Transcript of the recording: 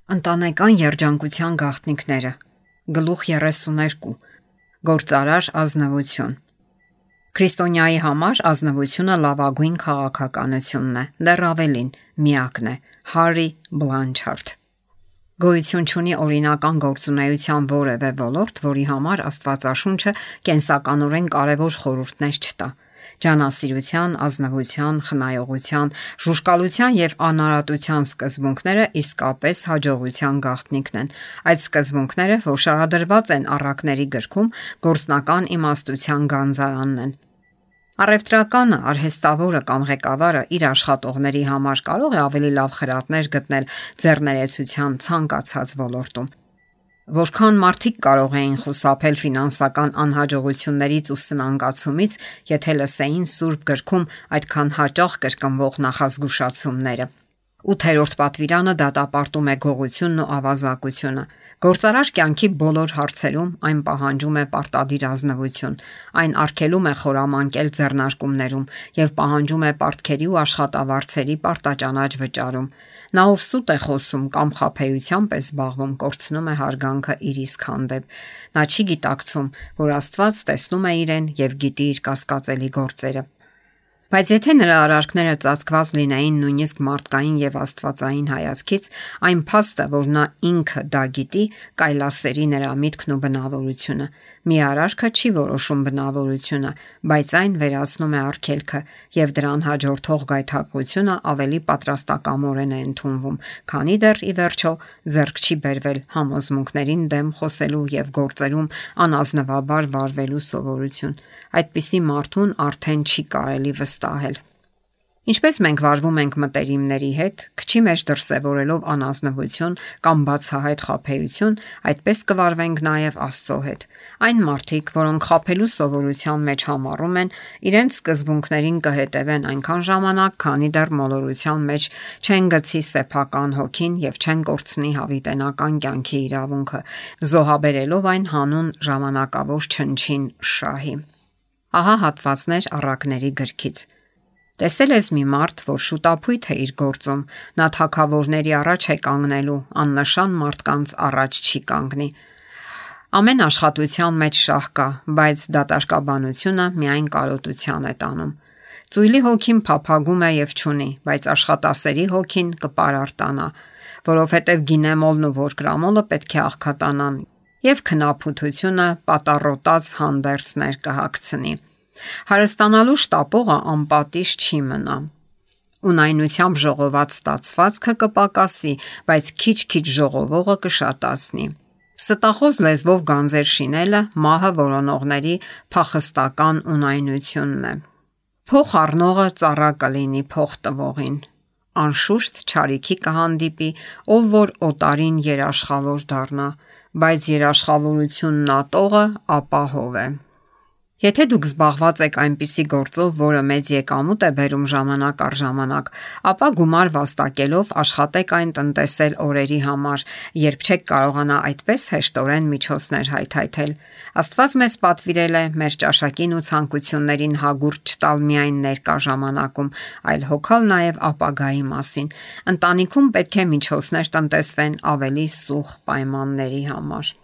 Ընտանեկան երջանկության գաղտնիքները Գլուխ 32 Գործարար ազնվություն Քրիստոնյայի համար ազնվությունը լավագույն քաղաքականությունն է, դեռ ավելին, միակն է, Հարի Բլանչարդ Գոյություն չունի օրինական գործունեության որևէ ոլորտ, որի համար Աստվածաշունչը կենսականորեն կարևոր խորհուրդներ չտա։ Ջանասիրության, ազնվության, խնայողության, ժուժկալության եւ անարատության սկզբունքները իսկապես հաջողության գաղտնիքն են։ Այդ սկզբունքները, որ շարադրված են առակների գրքում, գործնական իմաստության գանձարանն են։ Առևտրականը, արհեստավորը կամ ղեկավարը իր աշխատողների համար կարող է ավելի լավ խրատներ գտնել ձեռներեցության ցանկացած ոլորտում։ Որքան մարդիկ կարող էին խուսափել ֆինանսական անհաջողություններից ու սնանկացումից, եթե լսեին Սուրբ գրքում այդքան հաճախ կրկնվող նախազգուշացումները։ 8-րդ պատվիրանը դատապարտում է գողությունն ու ավազակությունը։ Գործարար կյանքի բոլոր հարցերում այն պահանջում է պարտադիր ազնվություն։ Այն արգելում է խորամանկել ձեռնարկումներում եւ պահանջում է պարտքերի ու աշխատավարձերի պարտաճանաչ վճարում։ Նա ով սուտ է խոսում կամ խաբեությամբ է զբաղվում, կորցնում է հարգանքը իր իսկ հանդեպ։ Նա չի գիտակցում, որ Աստված տեսնում է իրեն եւ գիտի իր կասկածելի գործերը։ Բայց եթե նրա արարքները ծածկված լինեին նույնիսկ մարդկային եւ աստվածային հայացքից, այն փաստը, որ նա ինքը դա գիտի, կայլասերի նրա միտքն ու բնավորությունը։ Մի արարքը չի որոշում բնավորությունը, բայց այն վերացնում է արգելքը եւ դրան հաջորդող գայթակղությունը ավելի պատրաստակամորեն է ընդունվում, քանի դեռ ի վերջո ձեռք չի բերվել համոզմունքներին դեմ խոսելու եւ գործերում անազնվաբար վարվելու սովորություն։ Այդպիսի մարդուն արդեն չի կարելի վստահել։ Ինչպես մենք վարվում ենք մտերիմների հետ, քչի մեջ դրսևորելով անազնվություն կամ բացահայտ խաբեություն, այդպես կվարվենք նաև Աստծո հետ։ Այն մարդիկ, որոնք խաբելու սովորության մեջ համառում են, իրենց սկզբունքներին կհետևեն այնքան ժամանակ, քանի դեռ մոլորության մեջ չեն գցի սեփական հոգին եւ չեն կորցնի հավիտենական կյանքի իրավունքը, զոհաբերելով այն հանուն ժամանակավոր չնչին շահի։ Ահա հատվածներ առակների գրքից։ Տեսել ես մի մարդ, որ շուտապույտ է իր գործում, նա թագավորների առաջ է կանգնելու, աննշան մարդկանց առաջ չի կանգնի։ Ամեն աշխատության մեջ շահ կա, բայց դատարկաբանությունը միայն կարոտության է տանում։ Ծույլի հոգին փափագում է եւ չունի, բայց աշխատասերի հոգին կպարարտանա, որովհետեւ գինեմոլն ու ворկրամոլը պետք է աղքատանան եւ քնափութությունը պատառոտած հանդերձներ կհագցնի։ Հարստանալու շտապողը անպատիժ չի մնա։ Ունայնությամբ ժողոված ստացվածքը կպակասի, բայց քիչ-քիչ ժողովողը կշատացնի։ Ստախոս լեզվով գանձեր շինելը մահը որոնողների փախստական ունայնությունն է։ Փող առնողը ծառա կլինի փող տվողին։ Անշուշտ չարիքի կհանդիպի, ով որ օտարին երաշխավոր դառնա, բայց երաշխավորությունն ատողը ապահով է։ Եթե դուք զբաղված եք այնպիսի գործով, որը մեծ եկամուտ է բերում ժամանակ առ ժամանակ, ապա գումար վաստակելով աշխատեք այն տնտեսել օրերի համար, երբ չեք կարողանա այդպես հեշտորեն միջոցներ հայթայթել։ Աստված մեզ պատվիրել է մեր ճաշակին ու ցանկություններին հագուրդ չտալ միայն ներկա ժամանակում, այլ հոգալ նաև ապագայի մասին։ Ընտանիքում պետք է միջոցներ տնտեսվեն ավելի սուղ պայմանների համար։